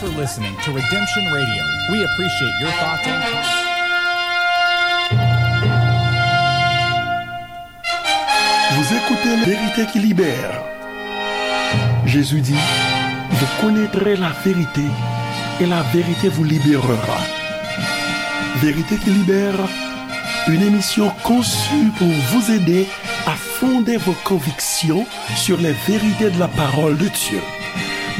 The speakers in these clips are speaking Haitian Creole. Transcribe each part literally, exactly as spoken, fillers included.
for listening to Redemption Radio. We appreciate your thoughts and comments. Vous écoutez Vérité qui libère. Jésus dit, vous connaîtrez la vérité et la vérité vous libérera. Vérité qui libère, une émission conçue pour vous aider à fonder vos convictions sur les vérités de la parole de Dieu.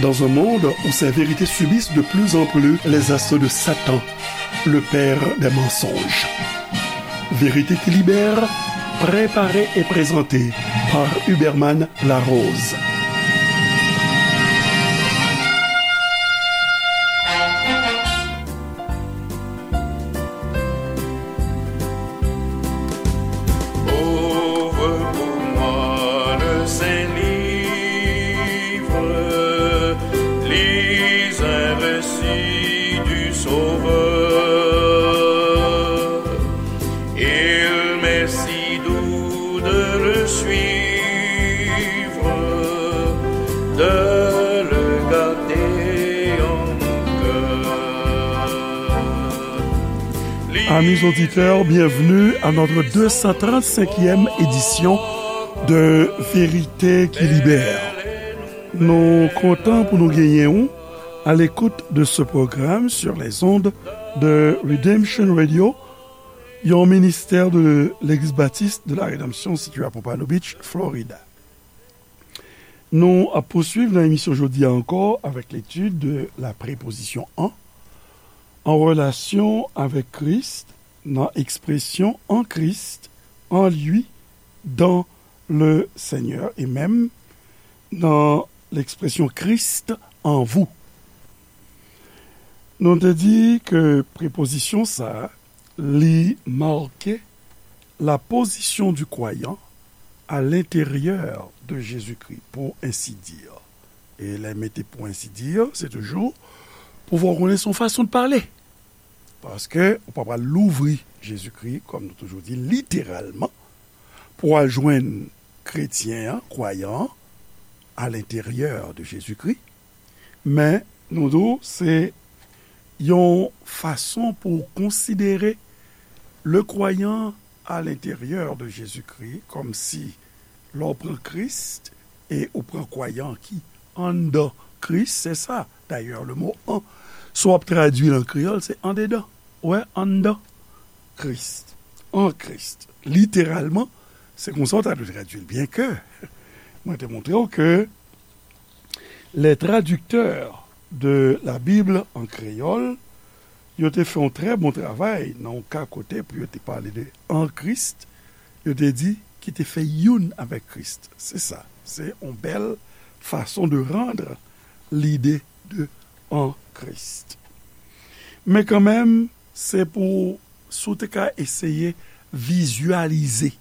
Dans un monde où ces vérités subissent de plus en plus les assauts de Satan, le père des mensonges. Vérité qui libère, préparée et présentée par Huberman Larose. Ouvre pour moi le Saint-Livre, lis un récit du Sauveur. Il m'est si doux de le suivre, de le garder en mon cœur. Amis auditeurs, bienvenue à notre deux cent trente-cinquième édition de Vérité qui libère. Nou kontan pou nou genyen ou à l'écoute de ce programme sur les ondes de Redemption Radio, yon ministè de Legliz Batis de la Redanmsyon sitiye à Pompano Beach, Florida. Nou ap pouswiv nan emisyon jodi a ankò avèk l'étude de la préposition en, en relation avec Christ, nan ekspresyon en Christ, en lui, dans le Seigneur, e menm nan ekspresyon Christ en vous. Nou te di ke prepozisyon sa a, li make la position du croyant à l'intérieur de Jésus-Christ, pour ainsi dire. E lè mete pour ainsi dire, se toujou pou fè w konnen se yon fason de pale. Paske ou pa pral louvri Jezikri, kòm nou toujou di, literalman, pou al jwenn kretyen an, kwayan an, à l'intérieur de Jésus-Christ. Men, nou di w, se yon fason pou w konsidere le croyant à l'intérieur de Jésus-Christ, kòmsi lè w pran Kris e ou pran kwayan ki anndan Kris, se sa, dayè, le mo en, si w ap tradui l an kreyòl, se andedan. Ou wè, anndan Kris, en Christ. Literalman, se konsa w ta dwe tradui l. Byenke, mwen te montre w ke les traducteurs de la Bible en créole, yo te fè yon trè bon travay nan yon ka kote pou yo te pale de en Christ, yo te di ki te fè youn avèk Kris. Se sa. Se yon bèl fason de rendre l'idée de en Christ. Men kanmenm, se pou, si w te ka eseye vizyalize,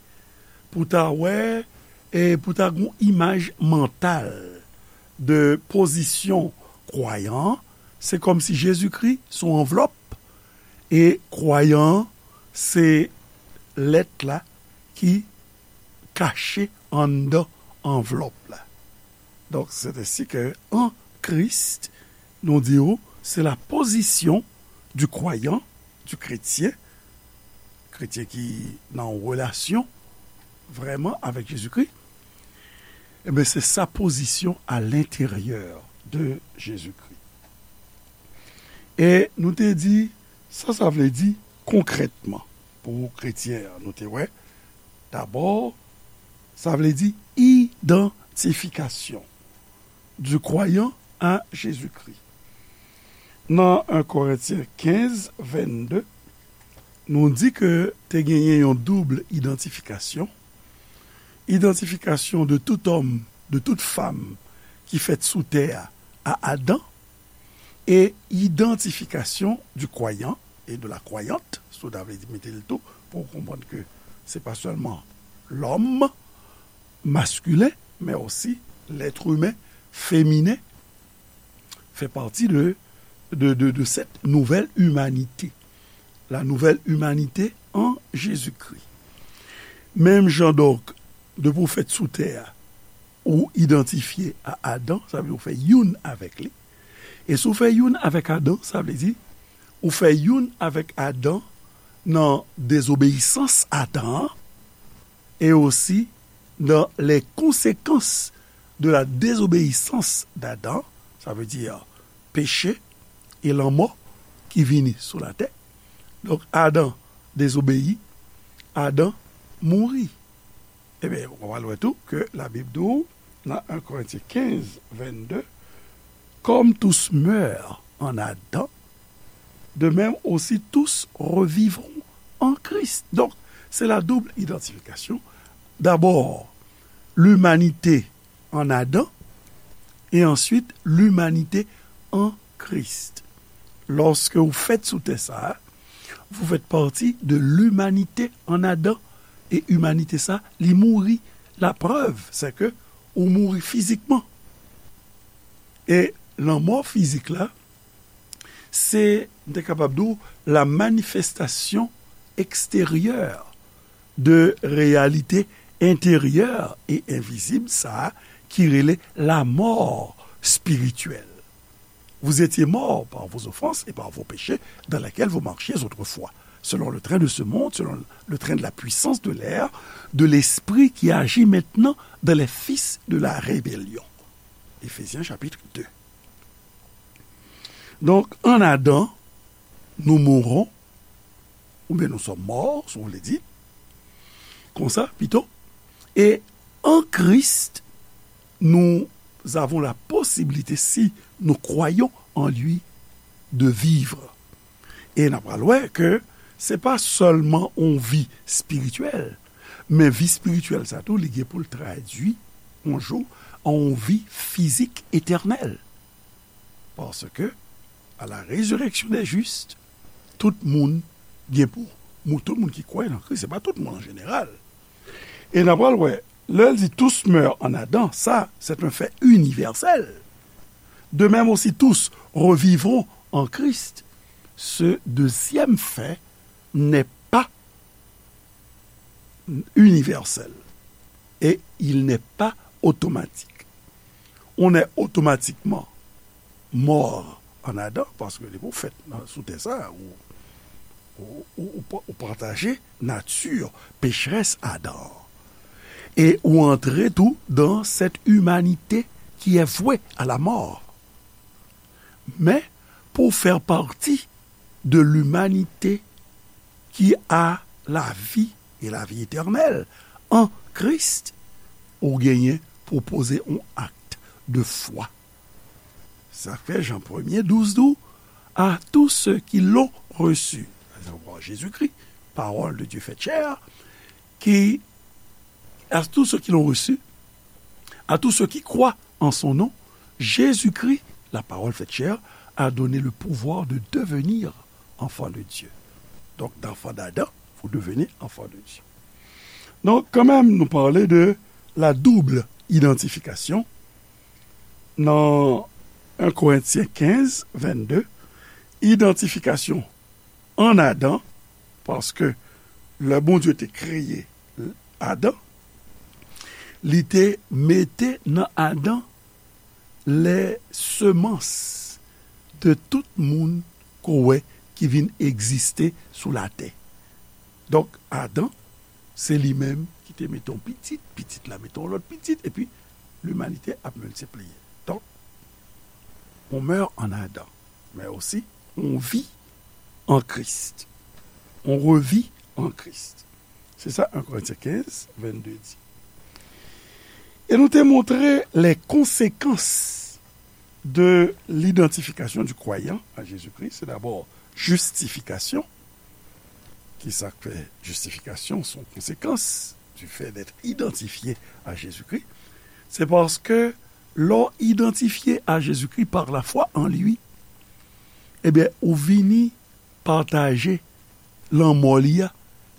pou ta wè, e pou ta gon imaj mantal de pozisyon kwayan an, se kòmsi Jezikri se yon anvlòp, e kwayan an se lèt la ki kache anndan anvlòp la. Donk, se ensi ke en Christ, nou di w, se la position du croyant, du chrétien, kretyen ki nan yon relasyon vrèman avèk Jezikri, ebyen, se sa pozisyon à l'intérieur de Jésus-Christ. E nou te di, sa sa vle di konkrètman pou kretyen an, nou te wè, dabò, sa vle di idantifikasyon du croyant à Jésus-Christ. Nan en Korentyen kenz, vennde, nou di ke te genyen yon doub idantifikasyon, idantifikasyon de tout homme, de toute femme ki fèt sou tè a, à Adam, e idantifikasyon du croyant et de la croyante, si w ta vle di mete l tou, pou w konprann ke se pa sèlman lòm maskilen, men osi lèt imen feminen fè pati de, de, de, de cette nouvelle humanité. La nouvelle humanité en Jésus-Christ. Menm jan donk, depi w fèt sou tè a, ou idantifye a Adan, sa vle di w fè youn avèk li. E si w fè youn avèk Adan, sa vle di, ou fè youn avèk Adan nan dezobeyisans Adan an, e osi dans les conséquences de la désobéissance d'Adam, sa vle di peche e lanmò ki vini sou latè. Donk, Adan dezobeyi, Adan mouri. Ebyen, w pral wè tou ke Labib di w, nan en Korentyen kenz, vennde, comme tous meurent en Adam, de même aussi tous revivront en Christ. Donk, se la double identification. D'abord, l'humanité en Adam, et ensuite l'humanité en Christ. Lorsque vous faites sous terre ça, vous faites partie de l'humanité en Adam. E imanite sa, li mouri. La preuve, c'est que ou mouri fizikman. E lanmò fizik la, se, m te kapab di w, la manifestation extérieure de réalité intérieure et invisible, sa ki rele la mort spirituelle. Vous étiez morts par vos offenses et par vos péchés dans lesquels vous marchiez autrefois, selon le train de ce monde, selon le train de la puissance de l'air, de l'esprit qui agit maintenant dans les fils de la rébellion. Éphésiens chapitre deux. Donk, an Adan, nous mourons, oubyen nous sommes morts, si vous voulez dire, konsa, pito. Et en Christ, nous avons la possibilité, si nous croyons en lui, de vivre. E n ap pral wè ke se pa sèlman yon vi espirityèl, men vi espirityèl sa tou, li gen pou l tradui yon jou an yon vi fizik etènèl. Paske, à la résurrection des justes, tout moun gen pou, mou-, tout moun ki kwè nan Kris, se pa tout moun an jeneral. E n ap pral wè, lè l di tous meurent en Adam, ça, c'est un fait universel. De même aussi, tous revivront en Christ. Ce deuxième fait n'est pas universel et il n'est pas automatique. On est automatiquement mort en Adam, paske depi w fèt nan, sou tè sa, ou, ou, ou, ou pa-, ou pataje nati pecherès Adan an. E ou antre tou dans cette humanité qui est vouée à la mort. Men, pou w fè pati de l'humanité qui a la vie et la vie éternelle en Christ, ou genyen pou poze yon acte de foi. Sa fè Jan premye douz di w, à tous ceux qui l'ont reçu, Jésus-Christ, parole de Dieu faite chair, qui, à tous ceux qui l'ont reçu, à tous ceux qui croient en son nom, Jésus-Christ, la parole faite chair, a donné le pouvoir de devenir enfant de Dieu. Donc, d'enfant d'Adam, vous devenez enfant de Dieu. Donk, kanmenm, nou pale de la double identification. Nan en Korentyen kenz, vennde, idantifikasyon an Adan, paske lè Bondye te kreye Adan, li te mete nan Adan les semences de tout moun ke w wè ki vin egziste sou latè. Donk, Adan, se li menm ki te mete yon pitit, pitit la mete yon lòt pitit, epi limanite ap miltipliye. Donk, on meurt en Adam, mais aussi on vit en Christ. On revit en Christ. Se sa en Korentyen kenz, vennde di. E nou te montre les conséquences de l'identification du croyant à Jésus-Christ. C'est d'abord justification. Ki sa k fè justifikasyon se yon konsekans du fait d'être identifié à Jésus-Christ? Se paske lè w idantifye a Jezikri par la foi en lui, ebyen, ou vini pataje lanmò li a.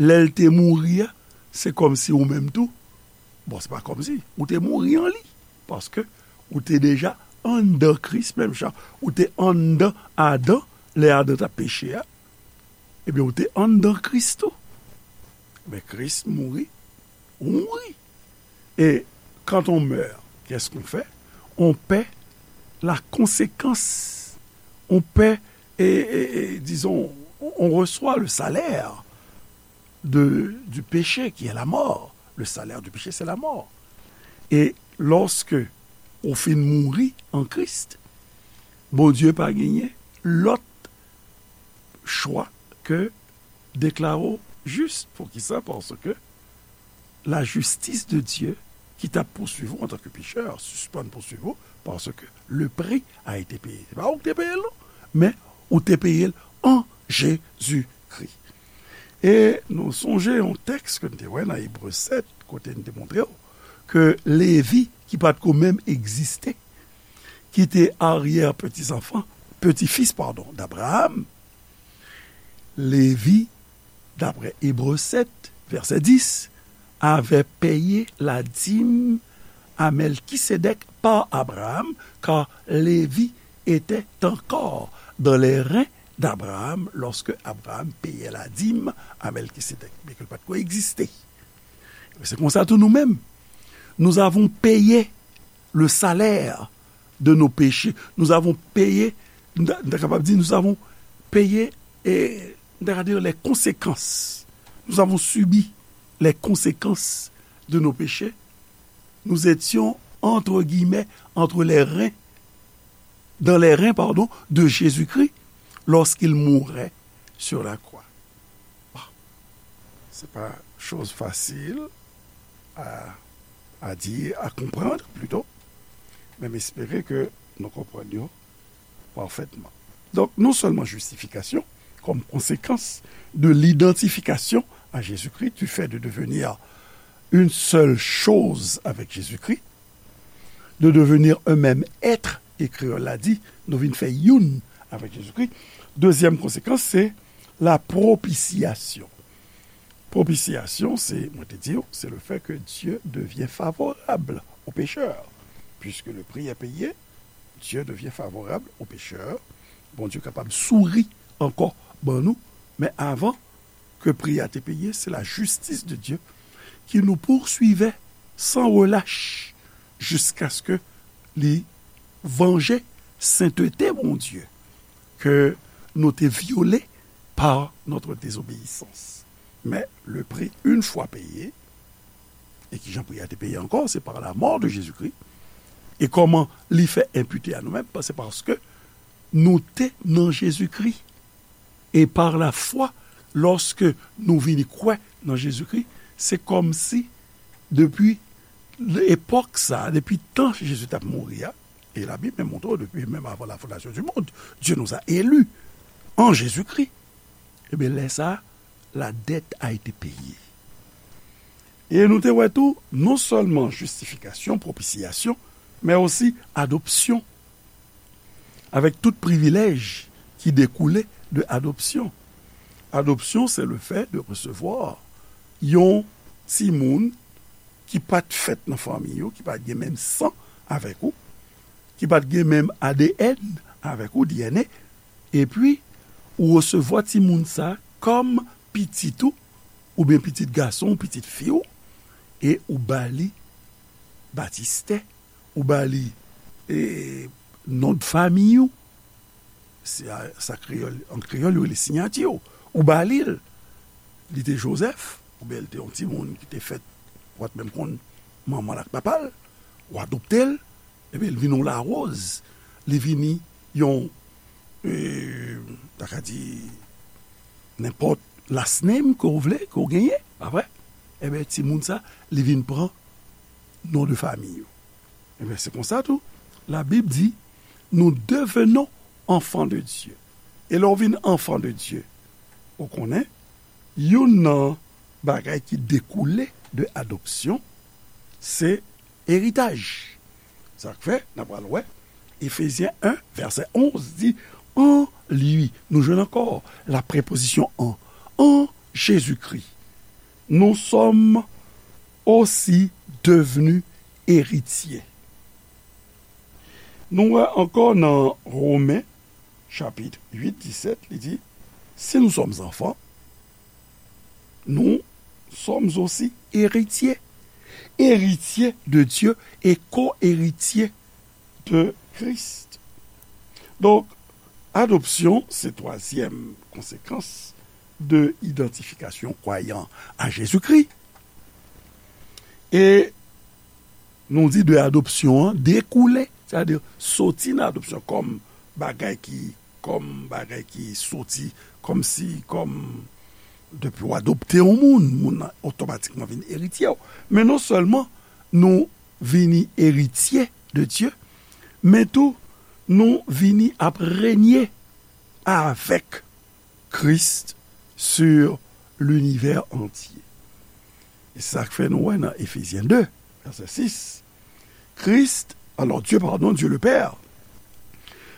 Lè l te mouri a, se kòmsi ou menm tou, bon, se pa kòmsi, ou te mouri an li, paske ou te deja anndan Kris, menm jan ou te anndan Adan, lè Adan t ap peche a, ebyen, ou te anndan Kris tou. Men Kris mouri, ou mouri. Et quand on meurt, qu'est-ce qu'on fait? On paie la conséquence on paie, et, et, et, disons, on, on reçoit le salaire de, du péché qui est la mort. Le salaire du péché, c'est la mort. E lòske ou fin mouri an Kris, Bondye pa genyen lòt chwa ke deklare w jis. Poukisa? Paske la justice de Dieu ki t ap pouswiv ou antanke pechè sispann pouswiv ou, paske le prix a été payé. Se pa ou ki te peye l, non, men ou te peye l an Jezikri. E nou sonje yon tèks ke n te wè nan Ebre sèt, kote n te montre w ke Levi, ki pa t ko menm egziste, ki te aryè peti zanfan, peti fis, padon, d'Abraham, Levi, d'après Hébreux sept, verset dix, avait payé la dîme à Melchisédek par Abraham, car Lévi était encore dans les reins d'Abraham lorsque Abraham payait la dîme à Melchisédek, byenke l pa t ko egziste. Se konsa tou nou menm, nous avons payé le salaire de nos péchés. Nous avons payé, nou ta, nou ta kapab di, nous avons payé, e, nou ta ka di, les conséquences. Nous avons subi les conséquences de nos péchés. Nous étions, entre guillemets, entre les reins, dans les reins, pardon, de Jésus-Christ lorsqu'il mourait sur la croix. Bon, se pa choz fasil a, a di, a konprann, plito, men m espere ke nou konprann yo pafètman. Donk, non sèlman jistifikasyon, comme conséquence de l'identification à Jésus-Christ, du fait de devenir une seule chose avec Jésus-Christ, de devenir un même être, e kreyòl la di, nou vin fè youn avèk Jezikri. Dezyèm konsekans, se la propitiation. Propitiation, se, mwen te di w, c'est le fait que Dieu devient favorable au pécheur. Puisque le prix est payé, Dieu devient favorable au pécheur. Bondye kapab souri ankò ban nou, men avan ke pri a te peye, c'est la justice de Dieu qui nous poursuivait sans relâche jusqu'à ce que li vanje sentete Bondye ke nou te vyole par notre désobéissance. Men le prix, une fois payé, e kijan pri a te peye ankò, c'est par la mort de Jésus-Christ. E kòman li fè enpite a nou menm? Se paske nou te nan Jezikri. E par la foi, lòske nou vini kwè nan Jezikri, se kòmsi depi epòk sa, depi tan Jezi t ap mouri a, e Labib menm montre w, depi menm avan la fondation du monde, Dieu nous a élus en Jésus-Christ. Ebyen, lè sa a, la dette a été payée. E nou te wè tou, non sèlman jistifikasyon, pwopisyasyon, men osi adopsyon, avèk tout privilèj ki dekoule de adopsyon. Adoption, c'est le fait de recevoir yon timoun ki pa t fèt nan fanmi ou, ki pa t gen menm san avèk ou, ki pa t gen menm A D N avèk ou, D N A, epi ou resevwa timoun sa kòm pitit ou, oubyen pitit gason w, pitit fi w, e ou ba li batistè, ou ba li, e, non de fanmi w, se a, sa kreyòl, an kreyòl, yo rele siyati w, ou ba li l. Li te Jozèf, oubyen li te yon timoun ki te fèt, ou pa t menm konn manman l ak papa l, ou adopte l, ebyen, li vin yon Larose, li vini yon, e, ta ka di, nenpòt last name ke w vle, ke w genyen, pa vre? Ebyen, timoun sa, li vin pran non de fanmi yo. Ebyen, se konsa tou, Labib di, nous devenons enfants de Dieu. E lè w vin enfant de Dieu, ou konnen, youn nan bagay ki dekoule de adopsyon, se eritaj. Sa k fè, n a pral wè, Efezyen en, vèsè onz di, en lui, nou jwenn ankò la prepozisyon en, en Jésus-Christ, nous sommes aussi devenus héritiers. Nou wè ankò nan Women, chapit uit, disèt, li di, si nous sommes enfants, nous sommes aussi héritiers. Héritiers de Dieu et co-héritiers de Christ. Donk, Adopsyon se twazyèm konsekans de idantifikasyon kwayan a Jezikri. E nou di de adopsyon an dekoule, sètadi soti nan adopsyon kòm bagay ki, kòm bagay ki soti, kòmsi, kòm depi w adopte yon moun, moun nan otomatikman vin eritye w. Men non sèlman nou vini eritye de Dye, men tou nou vini ap renye avèk Christ sur l'univers entier. E se sa k fè nou wè nan Efezyen de, vèsè sis, Christ, alors Dieu, pardon, Dieu le Père,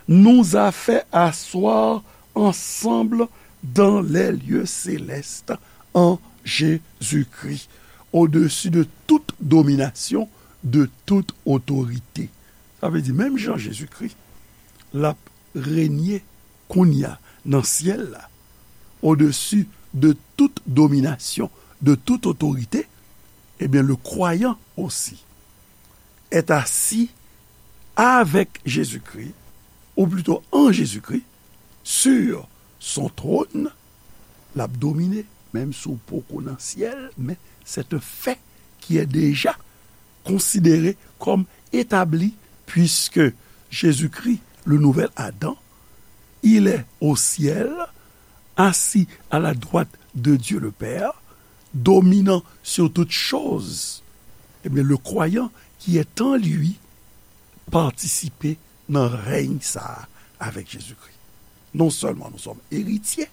nous a fait asseoir ensemble dans les lieux célestes en Jésus-Christ, au-dessus de toute domination, de toute autorité. Sa vle di, menm jan Jezikri, l ap renye kounye a nan syèl la, au-dessus de toute domination, de toute autorité, eh bien, le croyant aussi est assis avec Jésus-Christ, ou plutôt en Jésus-Christ, sur son trône, l ap domine, menm si w poko nan syèl, men c'est un fait qui est déjà considéré comme établi, puisque Jésus-Christ, le nouvel Adam, il est au ciel, assis à la droite de Dieu le Père, dominant sur toutes choses. Eh bien, le croyant qui est en lui participe nan rèy sa a avec Jésus-Christ. Non seulement nous sommes héritiers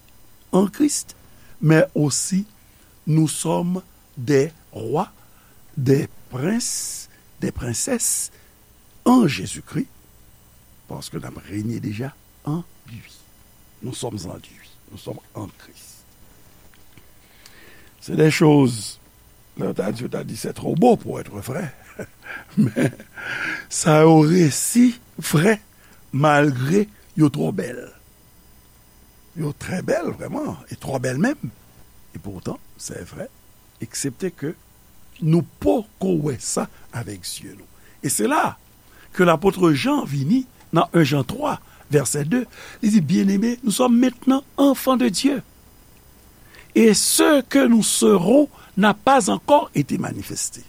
en Christ, mais aussi nous sommes des rois, des princes, des princesses en Jésus-Christ, parce que nous avons régné déjà en lui. Nous sommes en lui. Nous sommes en Christ. C'est des choses, lè yo ta di, yo ta di, c'est trop beau pour être vrai. Men sa yo resi vrè, malgre yo twò bèl. Yo trè bèl, vrèman, e twò bèl menm. E poutan, c'est vrai, eksepte ke nou poko wè sa avèk zye nou. E se la ke lapot Jan vini nan en Jan twa, vèsè de, li di, Bien-aimés, nous sommes maintenant enfants de Dieu. Et ce que nous serons n'a pas encore été manifesté.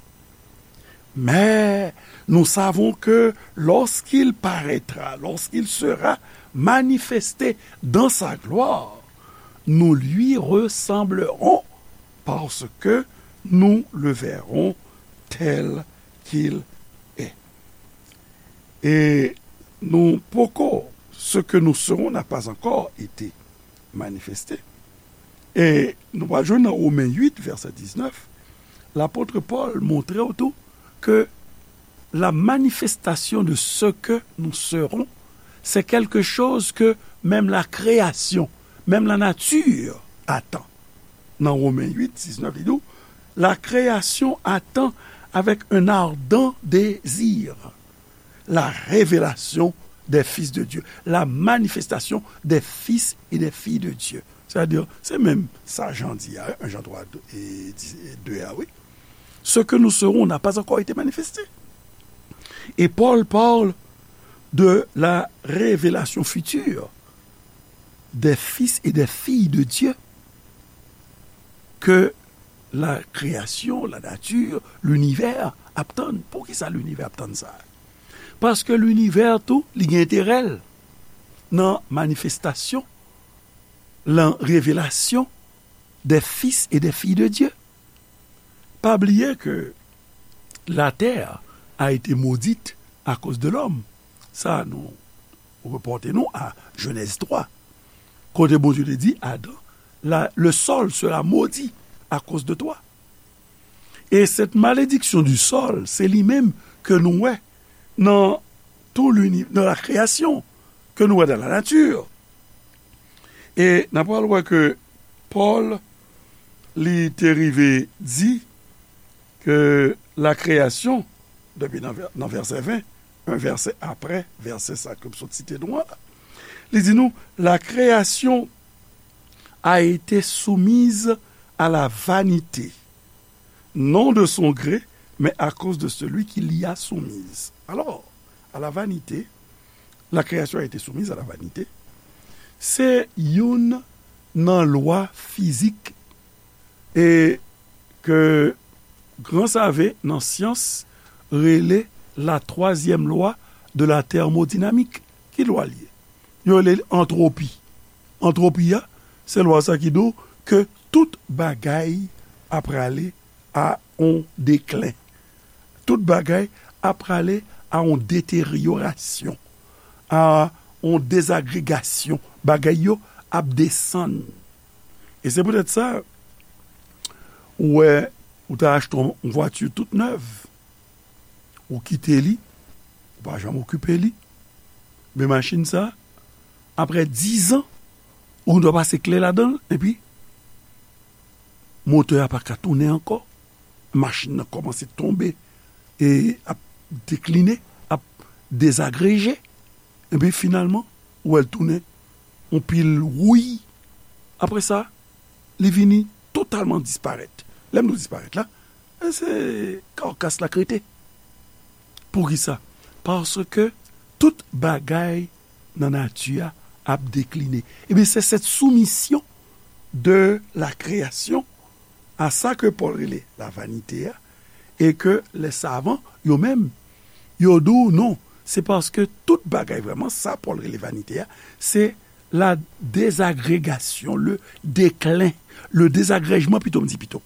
Mais nous savons que lorsqu'il paraîtra, lorsqu'il sera manifesté dans sa gloire, nous lui ressemblerons parce que nous le verrons tel qu'il est. E nou poko, ce que nous serons n'a pas encore été manifesté. E nou pral jwenn nan Women uit, vèsè diznèf, lapot Pòl montre w tou ke la manifestation de ce que nous serons, c'est quelque chose que même la création, même la nature attend. Nan Women uit, diznèf, li di w, la création attend avec un ardent désir la révélation des fils de Dieu, la manifestation des fils et des filles de Dieu. Sètadi, se menm sa Jan di a, en Jan twa, de a, wi. Ce que nous serons n'a pas encore été manifesté. Et Paul parle de la révélation future des fils et des filles de Dieu que la création, la nature, l'univers ap tann. Poukisa linivè ap tann sa? Paske linivè tou, li gen enterè l nan manifestasyon, lan revelasyon des fils et des filles de Dieu. Pa bliye ke la terre a été maudite à cause de l'homme. Sa nou repòte nou a Jenèz twa, kote Bondye te di Adan, la, le sol sera maudit à cause de toi. E cette malédiction du sol, se li menm ke nou wè nan tout l'uni-, dans la création, ke nou wè dans la nature. E n ap pral wè ke Pòl, li te rive di ke la création, depi nan vè-, nan vèsè ven, yon vèsè apre vèsè sa ke m sot site nou an la, li di nou, la création a été soumise à la vanité, non de son gré, mais à cause de celui qui l'y a soumise. Alors, à la vanité, la création a été soumise à la vanité, Se youn nan lwa fizik e ke gran save nan syans rele la twazyèm lwa de la tèmodinamik. Ki lwa l ye? Yo rele l antwopi. Antwopi a, se lwa sa ki di w ke tout bagay ap prale a on deklen. Tout bagay ap prale a on deteryorasyon, a on dezagregasyon. Bagay yo ap desann. E se poutèt sa, ou wè, ou ta achte yon vwati tout nèv, ou kite li, ou pa janm okipe li, men machin sa, apre diz an, ou dwe pase kle ladan l, epi motè a pa ka tounen ankò, machin nan kòmanse tonbe e ap dekline, ap dezagreje, epi finalman, ou wè l tounen yon pil wouy. Apre sa, li vini totalman disparèt. Lè m di w disparèt la, e se karkas la k rete. Poukisa? Paske tout bagay nan nati a ap dekline. Ebyen, se cette soumission de la création a sa ke Pòl rele la vanite a, e ke lè savan, yo menm, yo di w non, se paske tout bagay vrèman, sa Pòl rele vanite a, se la dezagregasyon, le deklen, le dezagrèjman, pito m di pito,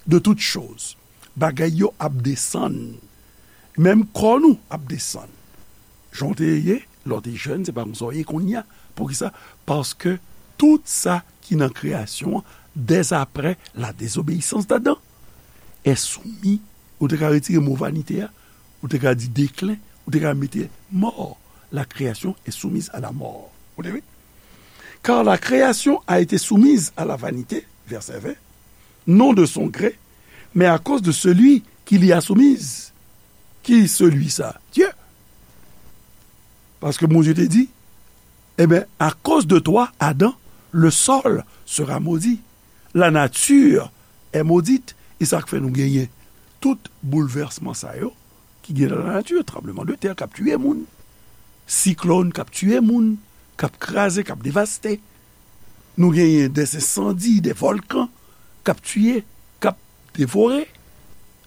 de tout choz. Bagay yo ap desann. Menm kò nou ap desann. Jan w te ye, lè w te jèn, se pa konsa w ye kounye a. Poukisa? Paske tout sa ki nan kreyasyon an, dèzaprè la désobéissance d'Adam, est soumis, ou te ka retire mo vanite a, ou te ka di deklen, ou te ka mete mò. La création est soumise à la mort. Ou te wi? Car la création a été soumise à la vanité, verset vingt, non de son gré, mais à cause de celui qui l'y a soumise. Ki celui sa? Dieu. Paske Bondye te di, eh bien, à cause de toi, Adam, le sol sera maudit. La nature est maudite. E sa k fè nou genyen tout boulvèsman sa yo ki gen nan lanati, tranbleman de tè k ap tiye moun, siklòn k ap tiye moun, k ap kraze, k ap devaste. Nou genyen des ensandi, des volcans k ap tiye, k ap devore.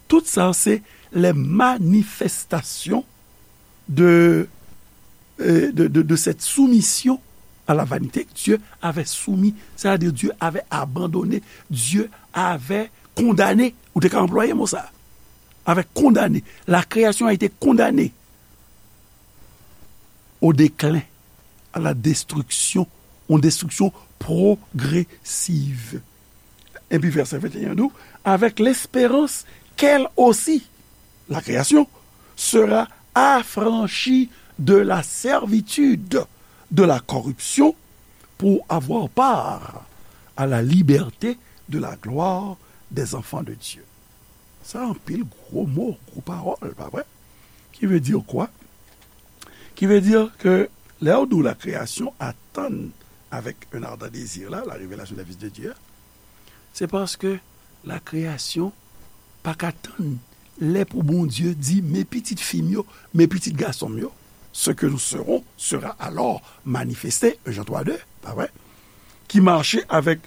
Tout sa se les manifestations de, euh, de, de, de cette soumission à la vanité que Dieu avait soumis, c'est-à-dire Dieu avait abandonné, Dieu avait condamné. Ou te ka anplwaye mo sa. Avec condamné. La création a été condamnée au déclin, à la destruction, une destruction progressive. Epi vèsè venteyen di w, avec l'espérance qu'elle aussi, la création, sera affranchie de la servitude de la corruption pour avoir part à la liberté de la gloire des enfants de Dieu. Sa anpil gwo mo, gwo pawòl, pa vre? Qui veut dire quoi? Qui veut dire que lè w di w la création attend avec un ardent désir la, la révélation des fils de Dieu, se paske la création pa ka tann lè pou Bondye di, mes petites filles m yo, mes petits garçons m yo, ce que nous serons sera alors manifesté, un Jean trois deux, pa vre? Qui marche avec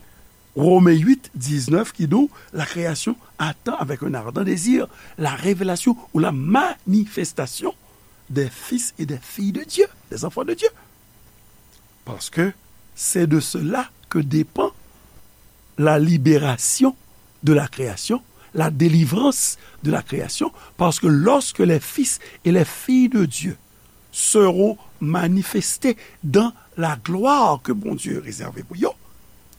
Romains huit, dix-neuf, qui dit, la création attend avec un ardent désir la révélation ou la manifestation des fils et des filles de Dieu, des enfants de Dieu. Parce que c'est de cela que dépend la libération de la création, la délivrance de la création, parce que lorsque les fils et les filles de Dieu seront manifestés dans la gloire que Bondye rezève pou yo,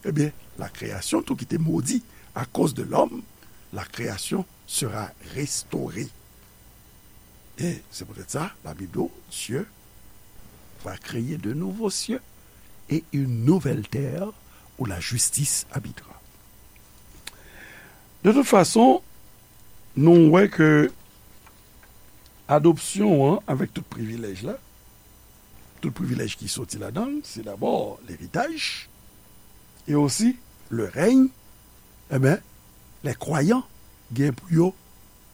ebyen, la création, tout ki te modi à cause de l'homme, la création sera restaurée. Et c'est peut-être ça, la Bible dit, Dieu va créer de nouveaux cieux et une nouvelle terre où la justice habitera. De toute façon, nou wè ke adopsyon an, avèk tout privilèj la, tout privilèj ki soti ladan l, se dabò leritaj, e osi le règne, e ben, les croyants gen pou yo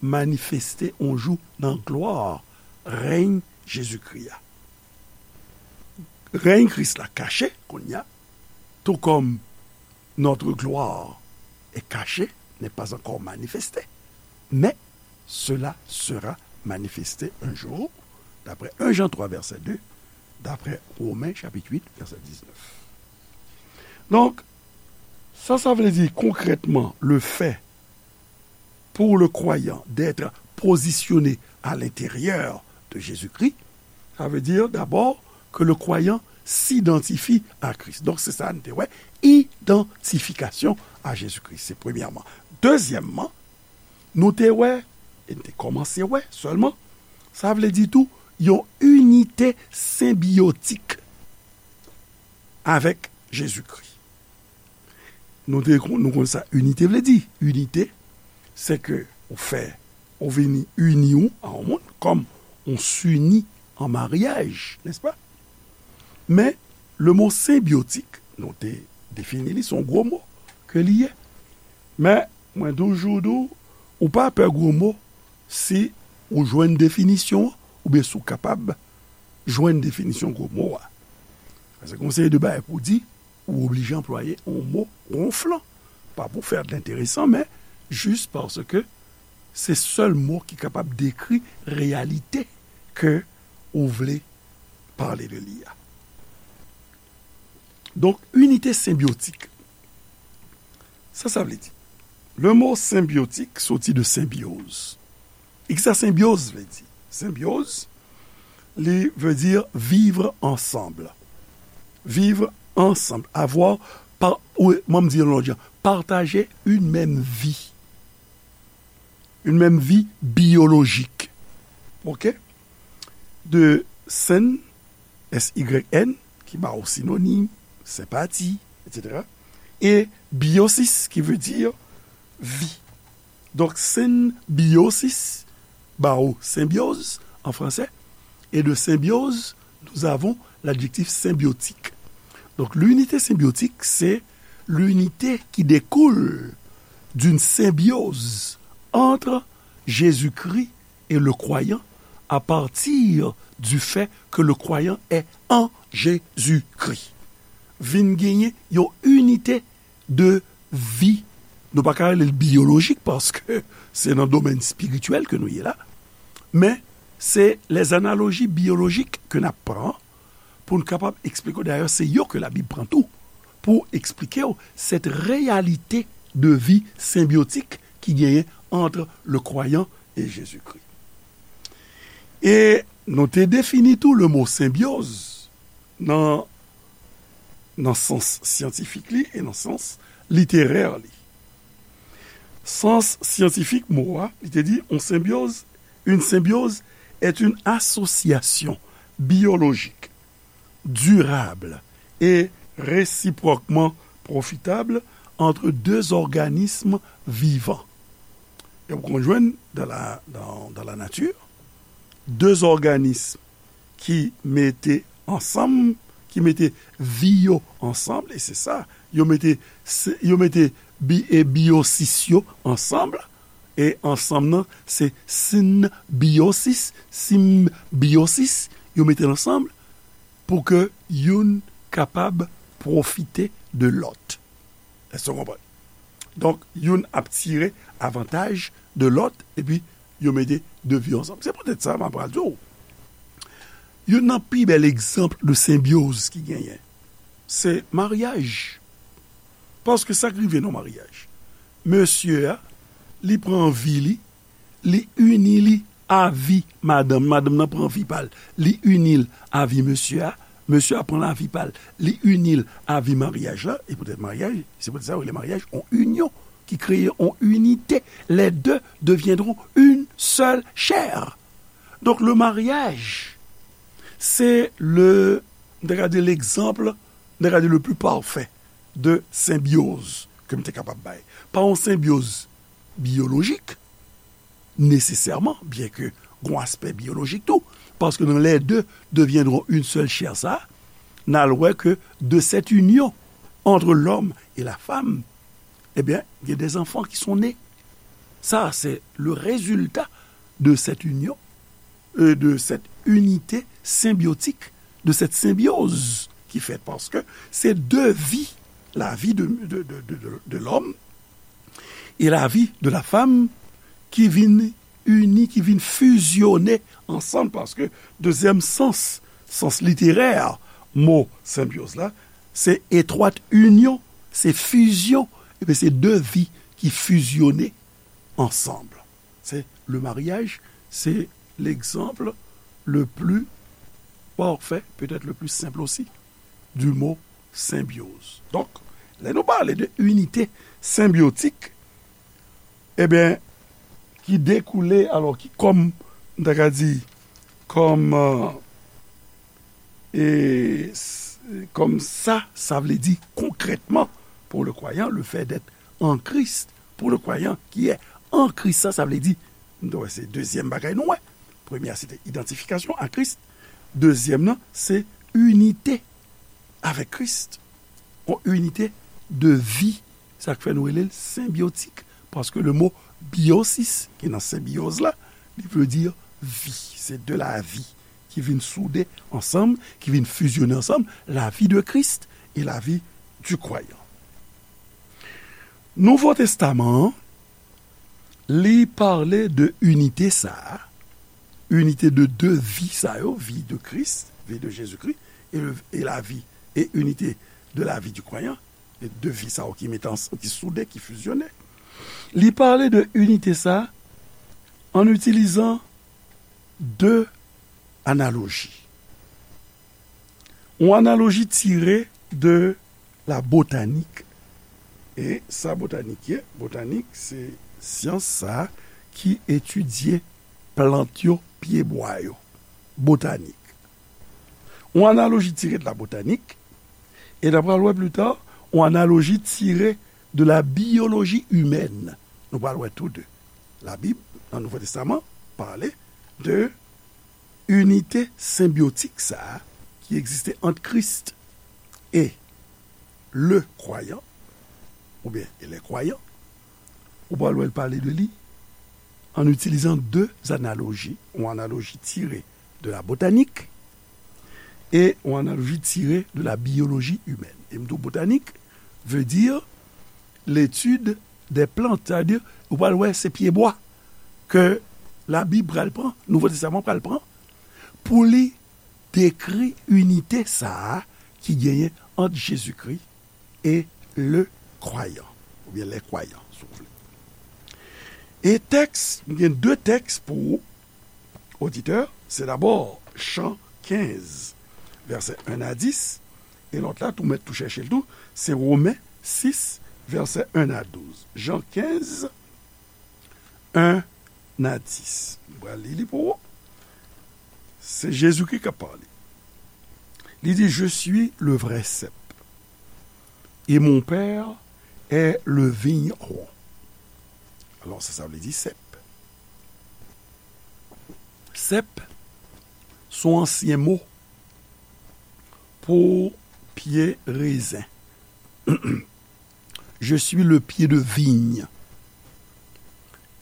manifeste yon jou nan glwa règne Jezikri a. Règne Kris la kache kounye a, tout comme notre gloire est cachée, n'est pas encore manifestée, mais cela sera manifesté un jour, d'après un Jean trois, verset deux, d'après Romains chapitre huit, verset dix-neuf. Donc, ça, ça veut dire concrètement le fait pour le croyant d'être positionné à l'intérieur de Jésus-Christ, ça veut dire d'abord que le croyant s'identifie à Christ. Donk, se sa n te wè, idantifikasyon a Jezikri. Se premyèman. Dezyèmman, nou te wè, e n te kòmanse wè sèlman, sa vle di tou, yon inite senbyotik avèk Jezikri. Nou te kon-, nou konn sa inite vle di. Inite, se ke ou fè, ou vini ini ou a yon moun, kòm on s'unit en mariage, n'est-ce pas? Men, le mot senbyotik, nou te defini li, se yon gwo mo ke li ye. Men, mwen toujou di w, ou pa pè gwo mo si ou jwenn definisyon an, oubyen si w kapab jwenn definisyon gwo mo a. Paske yon seri de bagay pou di, ou oblije anplwaye yon mo wonflan. Pa pou fè l enteresan, men jis paske se sèl mo ki kapab dekri reyalite ke ou vle pale de li a. Donk, inite senbyotik. Sa sa vle di? Le mo senbyotik soti de senbyoz. E kisa senbyoz vle di? Senbyoz, li vle di vivre ensemble. Vivre ensemble. Avoir, pa, ou, mwen m di yon lòt jan, partager une même vie. Une même vie biologique. OK? De syn, S Y N, ki ba w sinonim, senpati, et cetera. E biosis, qui veut dire vie. Donc, symbiosis, ba w symbiose en français, et de symbiose, nous avons l'adjectif symbiotique. Donc, l'unité symbiotique, c'est l'unité qui découle d'une symbiose entre Jésus-Christ et le croyant à partir du fait que le croyant est en Jésus-Christ. Vin genyen yon inite de vi. Nou pa ka rele l biyolojik paske se nan domèn espirityèl ke nou ye la. Men se les analogies biologiques ke n ap pran pou n kapab eksplike w. Dayè, se yo ke Labib pran tou pou eksplike w cette réalité de vie symbiotique ki genyen entre le croyant et Jésus-Christ. E nou te defini tou le mo senbyoz nan, nan sans syantifik li e nan sans literè li. Sans syantifik mo a, li te di, on symbiose, une symbiose est une association biologique durable et réciproquement profitable entre deux organismes vivants. E w konn jwenn dans la, dans, dans la nature, de òganis ki mete ansanm, ki mete vi yo ansanm, e se sa, yo mete, se, yo mete bi, e biosis yo ansanm, e ansanm nan, se sinbiosis, sinbiosis, yo mete l ansanm pou ke youn kapab pwofite de lòt. Èske w konprann? Donk, youn ap tire avantaj de lòt, epi yo mete de vi ansanm. Se poutèt sa, m ap pral di w, youn nan pi bèl egzanp de senbyoz ki genyen, se maryaj. Paske sa k rive nan maryaj, mesye a, li pran vi li, li ini li a vi madanm, madanm nan pran vi pa l, li ini l a vi mesye a, mesye a pran lavi pa l, li ini l a vi maryaj la, e poutèt maryaj, se poutèt sa yo rele maryaj on inyon, ki kreye on inite, les deux deviendront une seule chair. Donc le mariage, c'est le, m ta ka di l'exemple, m ta ka di le plus parfait de symbiose ke m te kapab bay. Pa yon senbyoz biyolojik, nesesèman, byen ke gon aspè biyolojik tou, paske dans les deux deviendront une seule chair sa, n al wè ke de cette union entre l'homme et la femme, ebyen, il y a des enfants qui sont nés. Sa, c'est le résultat de cette union, euh, de cette unité symbiotique, de cette symbiose ki fèt, paske se de vi la vie de, de, de, de, de, de l'homme et la vie de la femme ki vin ini, ki vin fizyone ansanm, paske dezyèm sans, sans literè mo senbyòz la, se etwat inyon, se fizyon, epi se de vi ki fizyone ansanm. C'est le mariage, c'est l'exemple le plus parfait, peut-être le plus simple aussi, du mot symbiose. Donk, lè nou pale de inite senbyotik, ebyen, ki dekoule, alò, ki kòm, m ta ka di, kòm, euh, e s- kòm sa, sa vle di konkrètman, pour le croyant, le fait d'être en Christ, pour le croyant qui est en Christ, sa, sa vle di, nou wè, se dezyèm bagay nou wè. Premye a, se te idantifikasyon a Kris. Dezyèm nan, se inite avèk Kris. Yon inite de vi. Sa k fè nou rele l senbyotik. Paske le mo biosis, ki nan senbyòz la, li vle di vi. Se de la vi ki vin soude ansanm, ki vin fizyone ansanm, la vie de Christ et la vie du croyant. Nouvo Testaman an, li pale de inite sa a, inite de de vi sa yo, vi de Christ, vie de Jésus-Christ, et, le- et la vie, et unité de la vie du croyant, e de vi sa yo ki mete ans- ki soude, ki fizyone. Li pale de inite sa a an itilizan de analoji. Yon analoji tire de la botanik. E sa botanik ye? Botanik, se syans sa a ki etidye plant yo, pyebwa yo. Botanik. Yon analoji tire de la botanik, e n ap pral wè pli ta, yon analoji tire de la biyoloji imèn. Nou pral wè tou de. Labib, nan Nouvo Testaman, pale de inite senbyotik sa a ki egziste ant Kris e le kwayan, oubyen e lè kwayan. Ou pral wè l pale de li an itilizan de analoji, yon analoji tire de la botanik e yon analoji tire de la biyoloji imèn. E m di w botanik vle di l'étude des plantes, sa vle di, ou pral wè se pyebwa ke Labib pral pran, Nouvo Testaman pral pran, pou li dekri inite sa a ki genyen ant Jezikri e le kwayan, oubyen les croyants, si w vle. E tèks, m gen de tèks pou ou, oditè, se dabò Jan kenz, vèsè en a dis, e lòt la, tou mèt tou chèche l tou, se Women sis, vèsè en a douz. Jan kenz, en a dis. M pral li li pou ou. Se Jezikri k ap pale. Li di, je suis le vrai cep, et mon Père est le vigneron. Alò, sa, sa vle di sèp. Sèp, se yon ansyen mo pou pye rezen. Je suis le pied de vigne,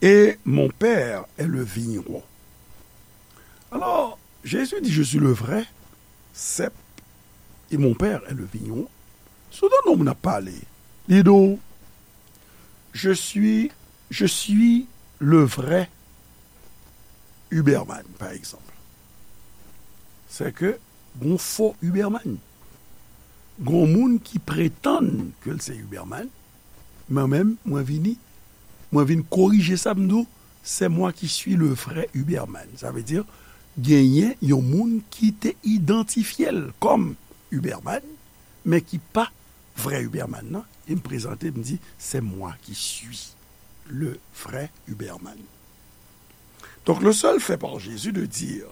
et mon Père est le vigneron. Alors, Jésus dit, je suis le vrai cep, et mon Père est le vigneron. Si w tande yon moun ap pale, li di w, je suis, je suis le vrai Huberman, pa egzanp. Se ke gon fo Huberman. Gon moun ki pretann ke l se Huberman, mwen menm, mwen vini, mwen vin korije sa, m di w, c'est moi qui suis le vrai Huberman. Sa vle di, genyen yon moun ki te idantifye l kòm Huberman, men ki pa vrè Huberman nan, e m prezante, m di, c'est moi qui suis le vrai Huberman. Donc, le seul fait par Jésus de dire,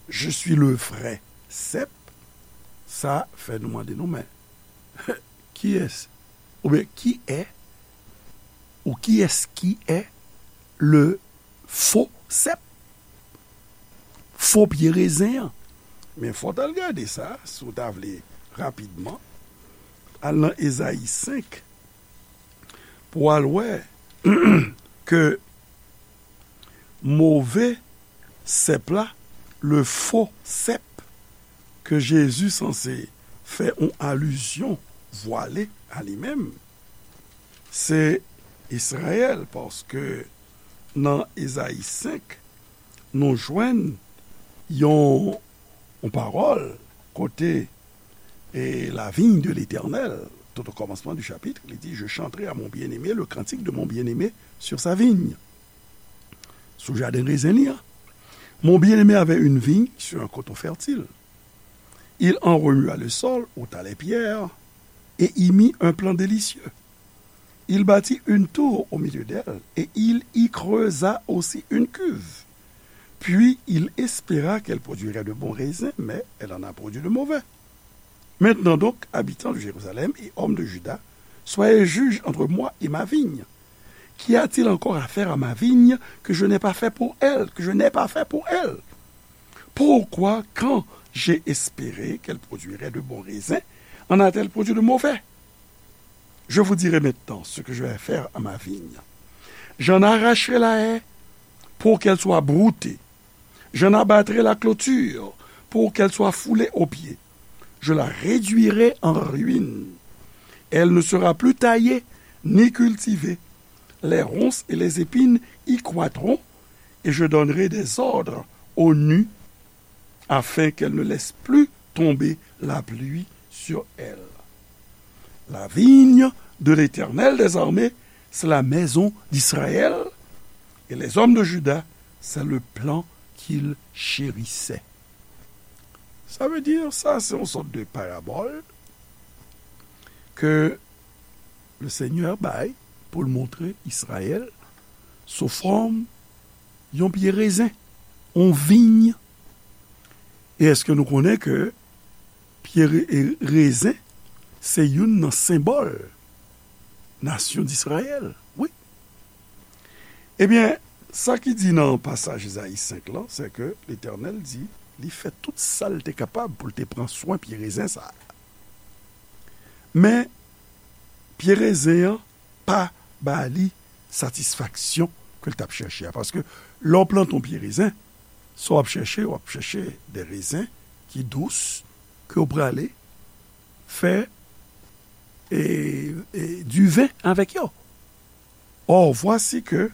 je suis le vrai cep, sa fè nou mande nou, men, kiyès, oubyen ki è, ou kiyès ki è le fo sèp? Fo pye rezen an. Men fò w t al gade sa, si w ta vle, rapidman. Al nan Ezayi senk, pou w al wè ke move sèp la, le fo sèp, ke Jezi sanse fè yon alizyon vwale a li menm, se Izrayèl, paske nan Ezayi senk, nou jwenn yon, yon pawòl kote, et la vigne de l'Éternel, tout au commencement du chapitre, li di, je chanterai à mon bien-aimé le cantique de mon bien-aimé sur sa vigne. Sou jaden rezen li an. Mon bien-aimé avait une vigne sur un coteau fertile. Il en remua le sol, ôta les pierres, et y mit un plant délicieux. Il bâtit une tour au milieu d'elle, et il y creusa aussi une cuve. Puis il espéra qu'elle produirait de bons raisins, mais elle en a produit de mauvais. Maintenant donc, habitants de Jérusalem et hommes de Juda, soyez juges entre moi et ma vigne. Qu'y a-t-il encore à faire à ma vigne que je n'ai pas fait pour elle, que je n'ai pas fait pour elle? Pourquoi, quand j'ai espéré qu'elle produirait de bons raisins, en a-t-elle produit de mauvais? Je vous dirai maintenant ce que je vais faire à ma vigne. J'en arracherai la haie pour qu'elle soit broutée. J'en abattrai la clôture pour qu'elle soit foulée aux pieds. Je la réduirai en ruine. Elle ne sera plus taillée ni cultivée. Les ronces et les épines y croîtront, et je donnerai des ordres aux nues afin qu'elles ne laissent plus tomber la pluie sur elle. La vigne de l'Éternel des armées, c'est la maison d'Israël, et les hommes de Juda, c'est le plan qu'ils chérissaient. Sa vle di, sa se yon sòt de parabòl ke le Senyè bay pou l montre Izrayèl sou fòm yon pye rezen, yon viy. E èske nou konnen ke pye re-, e rezen se youn nan senbòl nasyon Dizrayèl? Wi. Ebyen, sa ki di nan pasaj Ezayi senk lan, se ke Letènèl di, li fè tout sa l te kapab pou l te pran swen pye rezen sa a. Men, pye rezen an pa ba li satisfaksyon ke l t ap chèche a. Paske lè w plante yon pye rezen, sa w ap chèche, w ap chèche de rezen ki dous, ke w prale fè, e, e, diven avèk yo. Or, voici que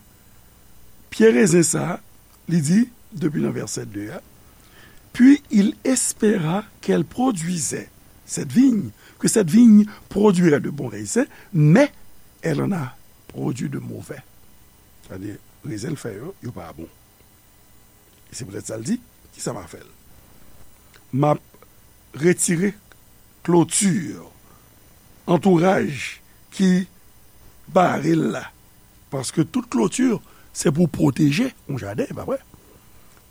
pye rezen sa a, li di, depi nan vèsè de a, puis il espéra qu'elle produisait, cette vigne, que cette vigne produirait de bons raisins, mais elle en a produit de mauvais. Sa vle di, rezen l fè yo, yo pa bon. E se poutèt sa l di, kisa m a fè l? M ap retire kloti, antouraj ki bare l la. Paske tout kloti, se pou pwoteje yon jaden, e pa vre?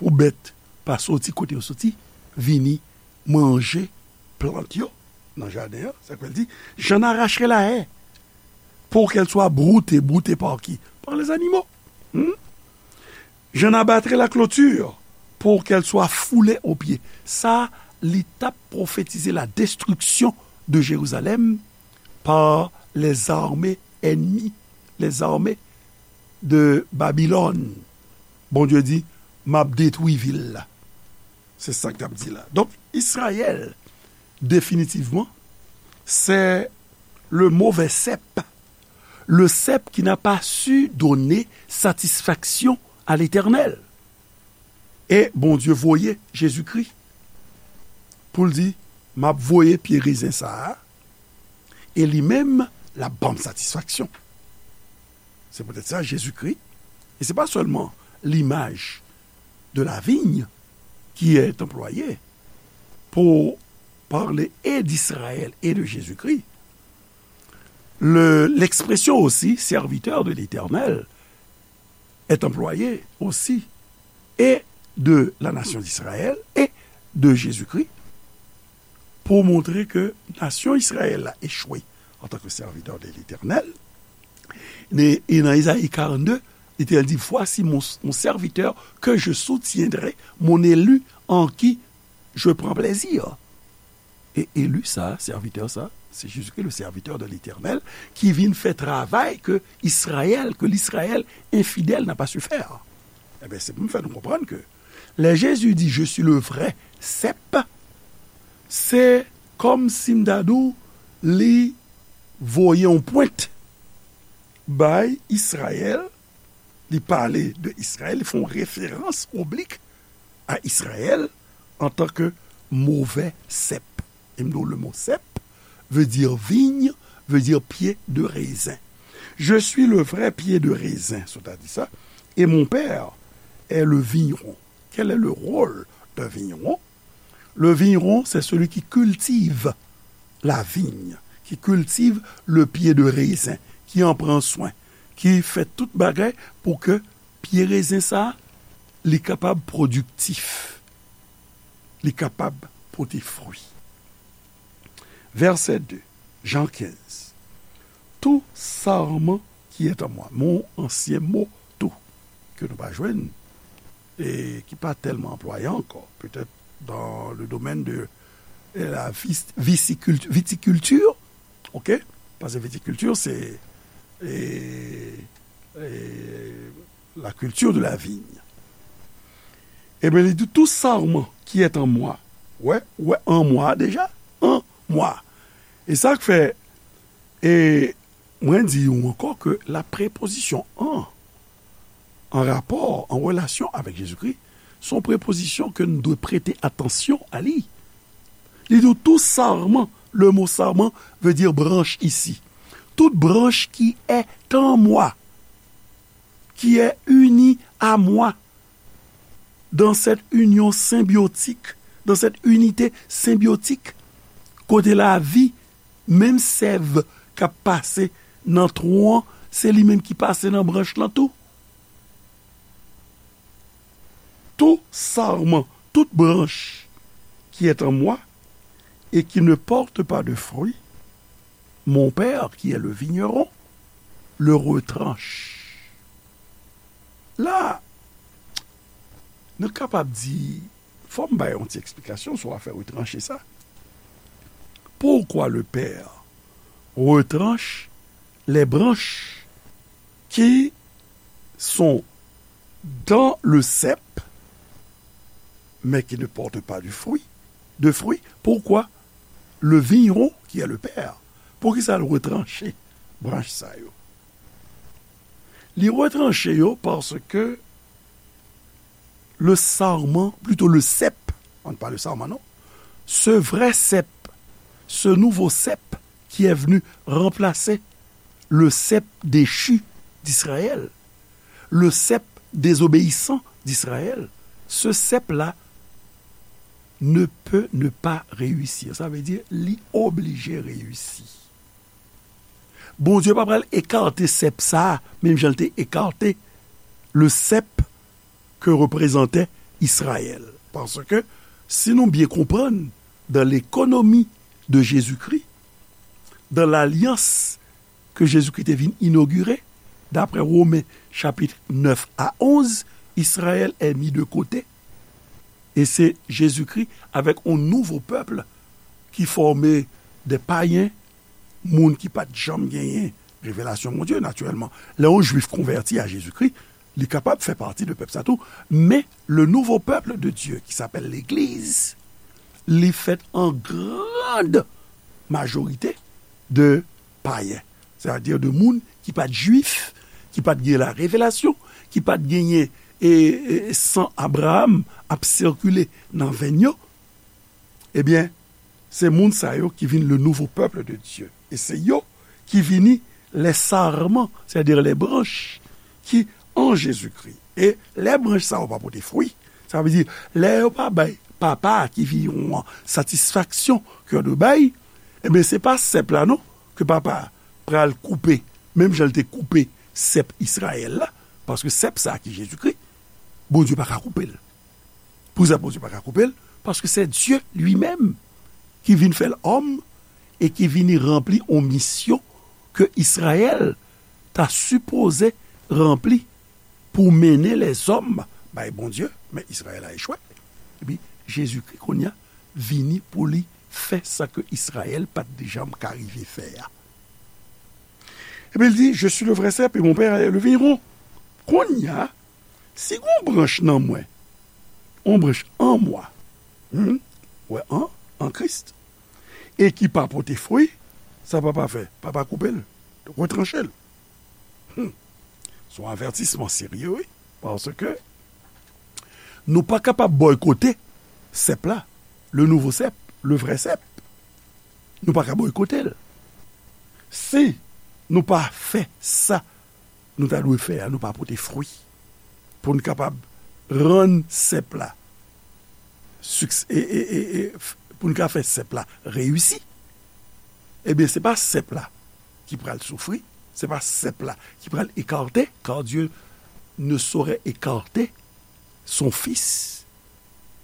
Pou bèt pa soti kote yo soti, vini manje plant yo nan jaden an. Sa k fè l di, j'en arracherai la haie pour qu'elle soit broutée. Broutée par qui? Par les animaux. Hmm? J'en abattrai la clôture pour qu'elle soit foulée aux pieds. Sa, li t ap pwofetize la destruction de Jérusalem par les armées ennemies, les armées de Babylone. Bondye di, m ap detwi vil la. Se sa k t ap di la. Donk, Izrayèl, definitivman, c'est le mauvais cep. Le cep qui n'a pas su donner satisfaction à l'Éternel. E Bondye voye Jezikri pou l di, m ap voye pye rezen sa a, e li menm, l ap ban m satisfaksyon. Se poutèt sa, Jezikri, e se pa sèlman l'image de la vigne qui est employée pour parler et d'Israël et de Jésus-Christ, le, l'expression aussi serviteur de l'Éternel est employée aussi et de la nation d'Israël et de Jésus-Christ pour montrer que nasyon Izrayèl la échoué en tant que serviteur de l'Éternel. E, e nan Ezayi karannde, Letènèl di, voici mon, mon serviteur que je soutiendrai, mon élu en qui je prends plaisir. E eli sa, sèvitè sa, se Jezikri, le serviteur de l'Éternel, ki vin fè travay ke Izrayèl, ke l'Israël infidèle n'a pas su faire. Ebyen, se pou m fè nou konprann ke lè Jezi di, je suis le vrai cep, se kòm si m ta di w, Li voye yon pwent bay Izrayèl, li pale de Izrayèl, li fè yon referans oblik a Izrayèl antanke movè sèp. E m di w, le mo sèp veut dire vigne, veut dire pied de raisin. Je suis le vrai pied de raisin, sètadi sa, et mon père est le vigneron. Quel est le rôle d'un vigneron? Le vigneron, c'est celui qui cultive la vigne, qui cultive le pied de raisin, qui en prend soin, ki fè tout bagay pou ke pye rezen sa a, li kapab pwodiktif, li kapab pote fwi. Vèsè de, Jan kenz. Tout sarment qui est en moi, mon ansyen mo tout, ke nou pa jwenn, e ki pa tèlman anplwaye ankò, petèt dans le domaine de la vis- visicult- viticulture, ok? Paske viticulture, c'est e, e, la culture de la vigne. Ebyen, li di, tout sarment qui est en moi. Wè, wè, en moi deja, en moi. E sa k fè, e, mwen di w ankò ke la prepozisyon en, an rapò, an relasyon avèk Jezikri, se yon prepozisyon ke nou dwe prete atansyon a li. Li di, tout sarment, le mot sarment veut dire branche ici. Toute branche qui est en moi, qui est unie à moi, dans cette union symbiotique, dans cette unité symbiotique, kote lavi, menm sèv k ap pase nan twon an, se li menm ki pase nan branch lan tou. Tout sarment, toute branche qui est en moi et qui ne porte pas de fruit, mon Père, qui est le vigneron, le retranche. La, nou kapab di, fò m bay yon ti eksplikasyon sou afè retranche sa. Pourquoi le Père retranche les branches qui sont dans le cep, mais qui ne portent pas du fruit, de fruits? Pourquoi le vigneron, qui est le Père, poukisa l retranche branch sa yo? Li retranche yo paske le sarment, plutôt le cep, on ne parle sarment, non, ce vrai cep, ce nouveau cep qui est venu remplacer le cep déchu d'Israël, le cep désobéissant d'Israël, ce cep-là ne peut ne pas réussir. Sa vle di, li oblije reyisi. Bondye pa pral ekate sèp sa a, menm jan l te ekate le cep ke reprezante Izrayèl. Paske, si nou byen konprann, dans l'économie de Jésus-Christ, dans l'alliance ke Jezikri te vin inogire, daprè Women chapit nèf a onz, Israël est mis de côté, e se Jezikri avèk yon nouvo pèp ki fòme de payen, moun ki pa t janm genyen revelasyon Bondye, natirèlman. Lè yon Jwif konvèti a Jezikri, li kapab fè pati de pèp sa tou, men le nouveau peuple de Dieu, qui s'appelle l'Église, li fèt an grand majorite de payen, sètadi de moun ki pa t Jwif, ki pa t gen la revelasyon, ki pa t genyen e, e, san Abraram ap sikile nan venn yo, ebyen, se moun sa yo ki vin le nouveau peuple de Dieu. E se yo ki vini les sarments, sètadi les branches, ki an Jezikri. E lè branch sa yo pa pote fwi, sa vle di, lè yo pa bay Papa a ki viyon an satisfaksyon ke yo dwe bay, ebyen, se pa sèp la non ke Papa a pral koupe, menm jan l te koupe sèp Izrayèl la, paske sèp sa a ki Jezikri, Bondye pa ka koupe l. Poukisa Bondye pa ka koupe l? Paske se Dye li menm ki vin fè l òm e ki vini ranpli yon misyon ke Izrayèl ta sipoze ranpli pou mennen lèzòm bay Bondye, men Izrayèl a echwe. Epi, Jezikri, kounye a, vini pou li fè sa ke Izrayèl pa t janm ka rive fè a. Epi, l di, Je suis le vrai cep et mon Père est le vigneron. Kounye a, si gon branch nan mwen, yon branch an mwa, hmm, wè, an, an Kris, e ki pa pote fwi, Sa papa fè? Papa koupe l, retranche l. Hmm. Se yon avètisman serye, wi. Paske nou pa kapab bòykote sèp la, le nouvo cep, le vrai cep. Nou pa ka bòykote l. Si nou pa fè sa nou ta dwe fè a, nou pa pote fwi. Pou n kapab rann sèp la, siks- e, e, e, e, f- pou n ka fè sèp la reyisi, ebyen, se pa sèp la ki pral soufri, se pa sèp la ki pral ekate, car Dieu ne saurait écarter son fils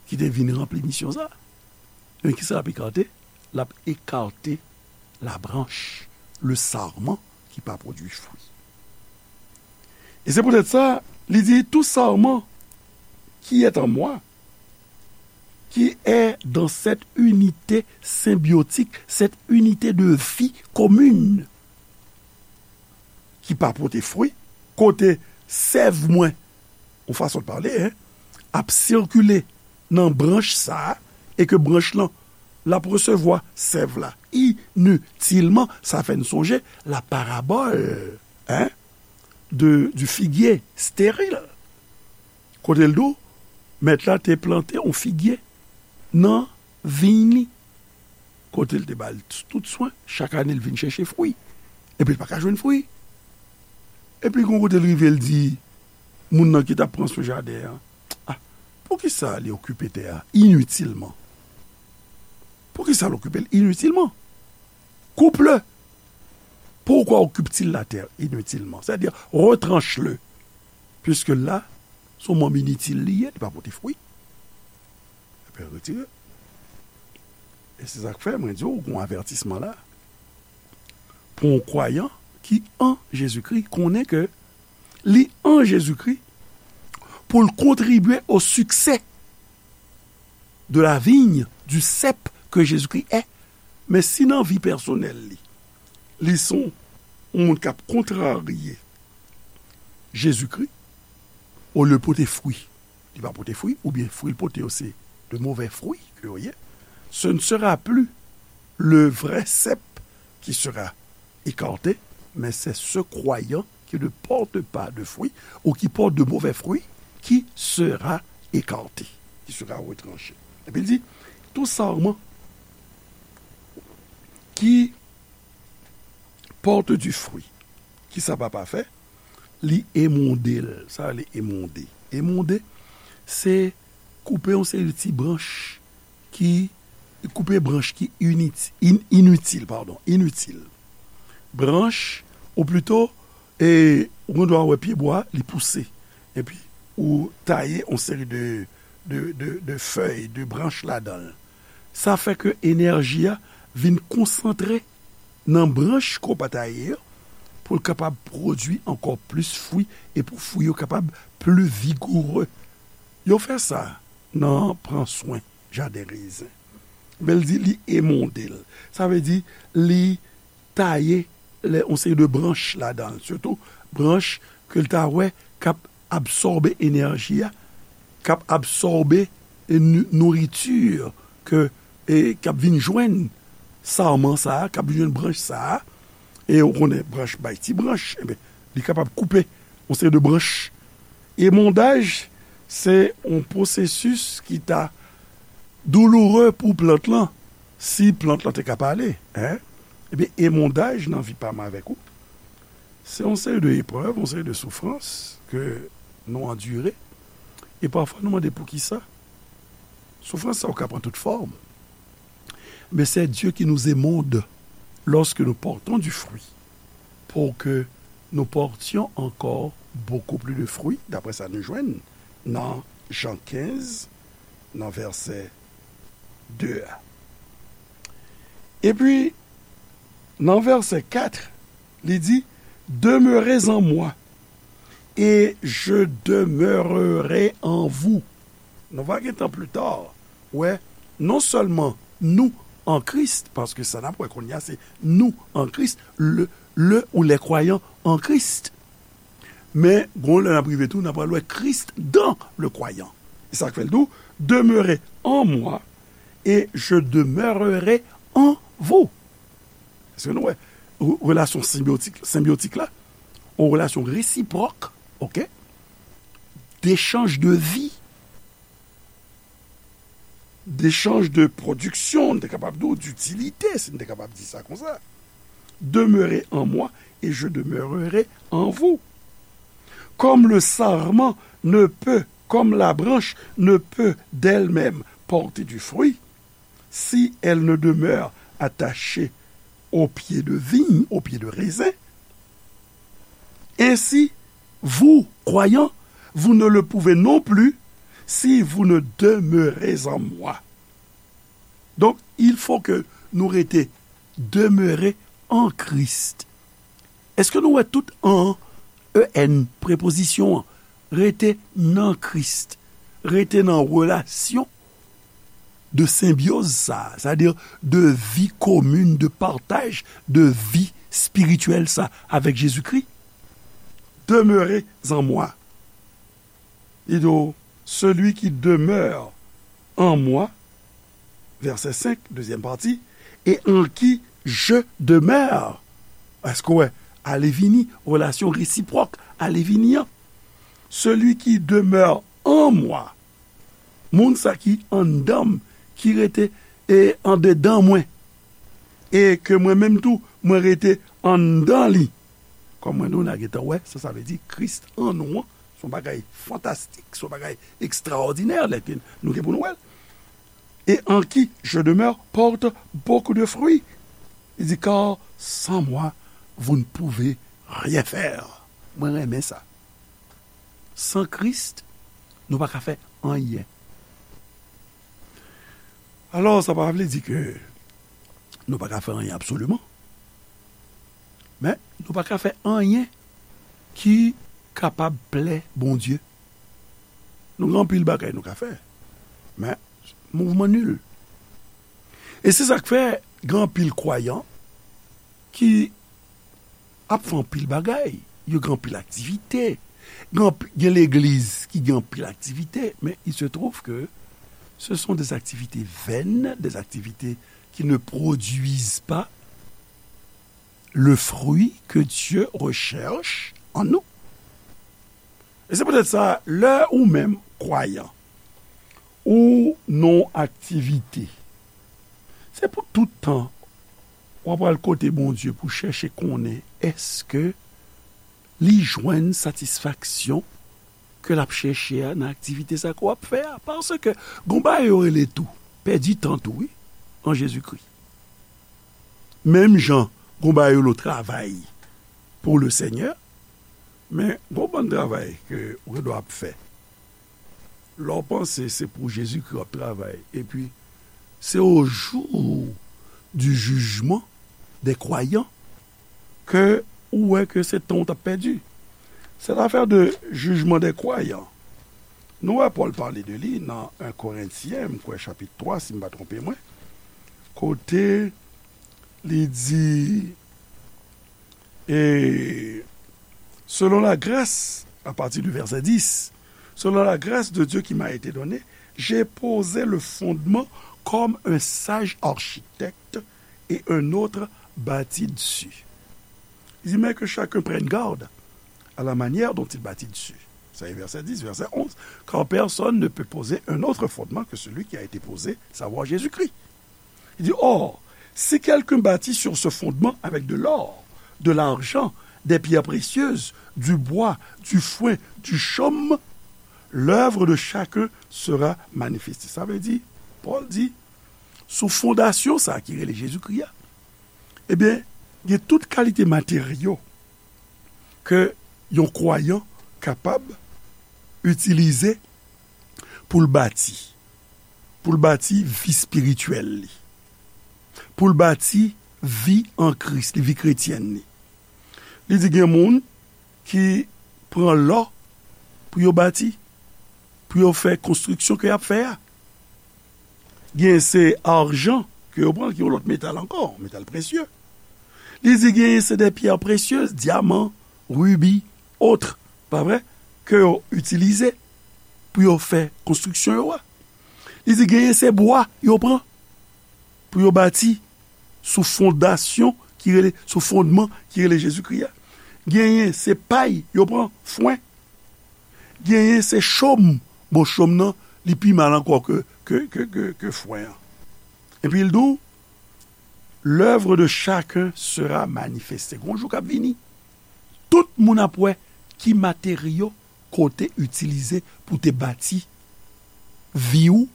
ki te vin ranpli misyon sa. Men kisa l ap ekate? L ap ekate la branche, le sarman ki pa pwodui fwi. E se poutèt sa, li di, tout sarman qui est en moi, qui est dans cette unité symbiotique, cette unité de vie commune, ki pa pote fwi, kote sèv mwen, yon fason de pale, en, ap sikile nan branch sa a, e ke branch lan, l ap resevwa sèv la initilman, sa fè n sonje la parabòl, en, de, du figuier stérile. Kote l di w, mèt la te plante yon figye nan viy li. Kote l te ba l tout swen, chak ane l vin chèche fwi. Epi l pa ka jwenn fwi. Epi gon kote l rive, l di moun nan ki t ap pran swen jaden an, "Ah, poukisa li okipe tè a initilman? Poukisa l okipe l initilman? Coupe-le. Pourquoi occupe-t-il la terre inutilement? C'est-à-dire, retranche-le. Puisque là, se yon manm initil li ye, li pa pote fwi." Epi retire. E se sa k fè, mwen di w, gon avètisman la. Pou yon kwayan ki an Jezikri, konnen ke li an Jezikri pou l kontribye o siksè de la vigne, du cep que Jésus-Christ est. Men si nan vi pèsonèl li, li se yon moun k ap kontrarye Jezikri, olye pote fwi, li pa pote fwi, oubyen fwi l pote yo se de mauvais fruits ke yo ye, ce ne sera plus le vrai cep qui sera écarté, mais c'est ce croyant qui ne porte pas de fruits ou qui porte de mauvais fruits qui sera écarté, qui sera retranché. Epi l di, tout sarman qui porte du fruit, kisa papa fè? Li emonde l. Sa rele emonde. Emonde, se koupe yon seri de ti branch ki, koupe branch ki init- in- initil, padon, initil. Branch, ou plito, e, ou gen dwa wè pyebwa, li pouse. Epi, ou taye yon seri de, de, de, de fèy, de branch ladan l. Sa fè ke enèji a vin konsantre nan branch ke w pa taye yo, pou l kapab pwodui ankò plis fwi, e pou fwi yo kapab pli vigoure. Yo fè sa nan pran swen jaden rezen. Men l di li emonde l. Sa vle di li taye lè, yon seri de branch ladan l, sitou branch ke l ta wè k ap absòbe enèji a, k ap absòbe, e, nou- nouriti ke, e, k ap vin jwenn sarman sa a, k ap vin jwenn branch sa a, e ou konnen branch bay ti branch, enben, li kapab koupe yon seri de branch. Emondaj, se yon pwosesis ki ta douloure pou plant lan, si plant lan te ka pale, en. Ebyen, emondaj nan vi pa m avèk ou, se yon seri de eprèv, yon seri de soufrans ke nou andire. E pafwa, nou mande poukisa. Soufrans sa yo ka pran tout fòm. Mais c'est Dieu qui nous émonde lorsque nous portons du fruit, pour que nous portions encore beaucoup plus de fruits, daprè sa nou jwenn nan Jan kenz, nan vèsè de a. Epi, nan vèsè kat, li di, Demeurez en moi, et je demeurerai en vous. Nou va gentan pli ta wè, non sèlman nou an Kris, paske sa n ap wè kounye a se nou an Kris, le, le ou les croyants en Christ. Men, gon lè n ap rive tou, n ap pral wè Christ dans le croyant. E sa k fè l di w, Demeurez en moi, et je demeurerai en vous. Paske nou wè, re- relasyon senbyotik, senbyotik la, yon relasyon resipròk, oke, dechanj de vi, dechanj de pwodiksyon, nou te kapab di w, ditilite, si nou te kapab di sa konsa. Demeurer en moi et je demeurerai en vous. Comme le sarment ne peut, comme la branche ne peut d'elle-même porter du fruit, si elle ne demeure attachée au pied de vigne, au pied de raisin, ainsi, vous, croyants, vous ne le pouvez non plus si vous ne demeurez en moi. Donk, il faut que nou rete demere an Kris. Èske nou wè tout an, E N, prepozisyon an, rete nan Kris, rete nan relasyon de senbyoz sa, sètadi de vi komin, de pataj, de vi espirityèl sa avèk Jezikri? Demeurez en moi. Li di w, celui qui demeure en moi, vèsè senk, dezyèm pati, et en qui je demeure. Èske w wè, ale vini, relasyon resipwòk, ale vini an. Celui qui demeure en moi, moun sa ki anndan m, ki rete e andedan mwen, e ke mwen menm tou, mwen rete anndan li. Kòm mwen di w, n a gentan wè sa sa vle di, Kris an nou an, se yon bagay fantastik, se yon bagay ekstraòdinè, lè ke nou gen pou nou wè l. Et en qui je demeure porte beaucoup de fruits. Il dit, car sans moi, vous ne pouvez rien faire. Mwen renmen sa. San Kris, nou pa ka fè anyen. Alò, sa pa vle di ke nou pa ka fè anyen absoliman. Men, nou pa ka fè anyen ki kapab plè Bondye. Nou gen anpil bagay nou ka fè, men mouvman nil. E se sa k fè gen anpil kwayan ki ap fè anpil bagay. Yo gen anpil aktivite. Gen anp- gen legliz ki gen anpil aktivite, men il se trouve que ce sont des activités vaines, des activités qui ne produisent pas le fruit que Dieu recherche en nous. E se poutèt sa, lè ou menm kwayan, ou nan aktivite, se pou tout tan w ap al kote Bondye pou chèche konnen èske li jwenn satisfaksyon ke l ap chèche a nan aktivite sa ke w ap fè a. Paske gon bagay yo rele tou, pèdi tan tou, wi, an Jezikri. Menm jan gon bagay yo rele travay pour le Seigneur, men gon bann travay ke ou gen dwa ap fè. Lè w panse se pou Jezikri w ap travay, epi se au jour du jugement des croyants ke ou wè ke se tan w t ap pèdi. Cette affaire de jugement des croyants, nou wè Pòl pale de li nan en Korentyen, m kwè chapit twa, si m pa twonpe mwen, kote li di, et selon la grâce, à partir du verset dix, selon la grâce de Dieu qui m'a été donnée, j'ai posé le fondement comme un sage architecte et un autre bâtit dessus. Il dit, mais que chacun prenne garde à la manière dont il bâtit dessus. Ça est, verset dix, verset onze. Car personne ne peut poser un autre fondement que celui qui a été posé, savoir Jésus-Christ. Il dit, or, si quelqu'un bâtit sur ce fondement avec de l'or, de l'argent, des pierres précieuses, du bois, du foin, du chaume, l'œuvre de chacun sera manifestée. Sa vle di, Pòl di, sou fondasyon sa ki rele Jezikri a, ebyen, gen tout kalite materyo ke yon kwayan kapab itilize pou l bati, pou l bati vi espirityèl li, pou l bati vi an Kris li, vi kretyèn li. Li di gen moun ki pran lò pou yo bati, pou yo fè konstriksyon ke y ap fè a. Gen se ajan ke yo pran, ki yon lòt metal ankò, metal presye. Li di genyen se de pyè presye, dyaman, ribi, otre, pa vre, ke yo itilize pou yo fè konstriksyon yo a. Li di genyen se bwa yo pran pou yo bati sou fondasyon ki rele, sou fondman ki rele Jezikri a. Genyen se pay, yo pran fwen. Genyen se chòm. Bon, chòm nan, li pi mal ankò ke, ke, ke, ke, ke fwen an. Epi l di w, l'œuvre de chacun sera manifestée. Gon jou k ap vini, tout moun ap wè ki materyo ke w te itilize pou w te bati vi w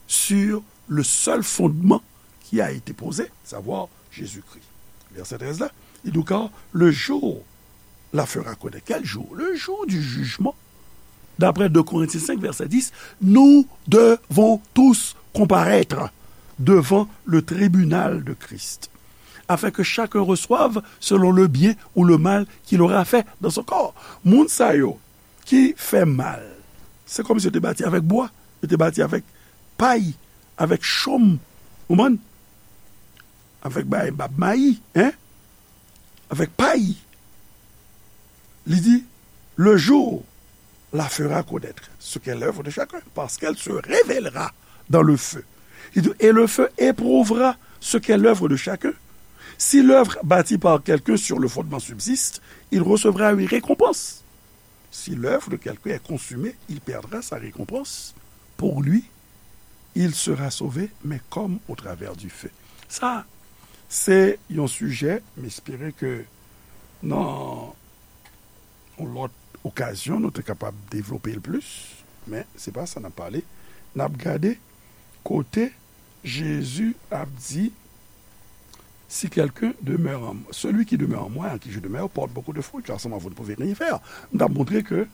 sur le seul fondement qui a été posé, savoir Jésus-Christ. Vèsè trèz la, li di, car le jour la fera connaître. Quel jour? Le jour du jugement. D'après deux Corinthiens cinq, verset dix, nous devons tous comparaître devant le tribunal de Christ, afin que chacun reçoive selon le bien ou le mal qu'il aura fait dans son corps. Moun sa yo ki fè mal, se kòmsi yo te bati avèk bwa, yo te bati avèk pay, avèk chòm, ou konprann? Avèk bay bab mayi, hein? Avèk pay. Li di, le jour la fera connaître ce qu'est l'œuvre de chacun, parce qu'elle se révélera dans le feu. Li di, et le feu éprouvera ce qu'est l'œuvre de chacun. Si l'œuvre bâtie par quelqu'un sur le fondement subsiste, il recevra une récompense. Si l'œuvre de quelqu'un est consumée, il perdra sa récompense. Pour lui, il sera sauvé, mais comme au travers du feu. Sa, se yon sijè, m espere ke nan yon lòt okazyon, nou te kapab devlope l plis, men se pa sa n ap pale. N ap gade kote Jezi ap di, si quelqu'un demeure en, celui qui demeure en moi, en qui je demeure, porte beaucoup de fruits, car sans moi, vous ne pouvez rien faire. M t ap montre ke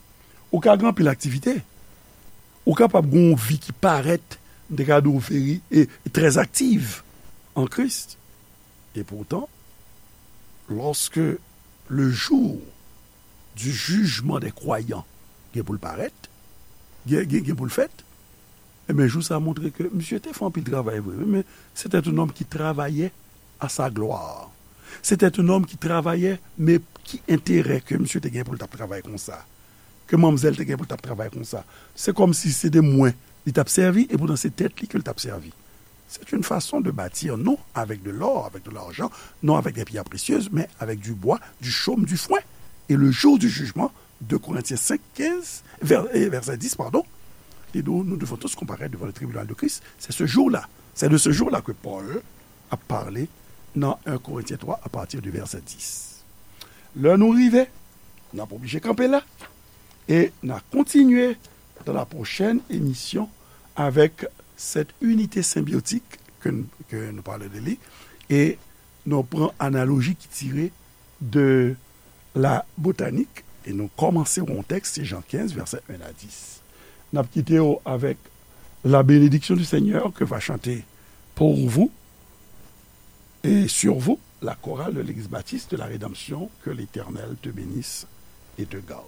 ou ka gen anpil aktivite, ou kapab gen yon vi ki parèt, m te ka di w veri, e, e trè aktiv an Kris. E poutan, lorsque le jour du jugement des croyants gen pou l parèt, gen, gen, gen pou l fèt, ebyen, jou sa a montre ke misye te fè anpil travay vre, wi, men c'était un homme qui travaillait à sa gloire. C'était un homme qui travaillait, men ki enterè ke misye te gen pou l t ap travay konsa? Ke manmzèl te gen pou l t ap travay konsa? Se kòmsi se te mwen li t ap sèvi, e poutan se tèt li ke l t ap sèvi. C'est une façon de bâtir, non avec de l'or, avec de l'argent, non avec des pierres précieuses, mais avec du bois, du chaume, du foin. Et le jour du jugement, deux Corinthiens cinq, quinze, vers, et verset dix, pardon, li di, nous devons tous comparaître devant le tribunal de Christ. C'est ce jour-là, c'est de ce jour-là que Paul a parlé dans un Corinthiens trois à partir du verset dix. Lè nou rive, n ap oblije kanpe la, e n a kontinye dans la prochaine émission avec cette unité symbiotique que, que nous parlons de lui, et nou pran analoji ki tire de la botanik, e nou kòmanse yon tèks, se Jan kenz, vèsè un à dix. N ap kite w avèk la bénédiction du Seigneur que va chanter pour vous et sur vous la chorale de l'église baptiste de la Rédemption. Que l'Éternel te bénisse et te garde.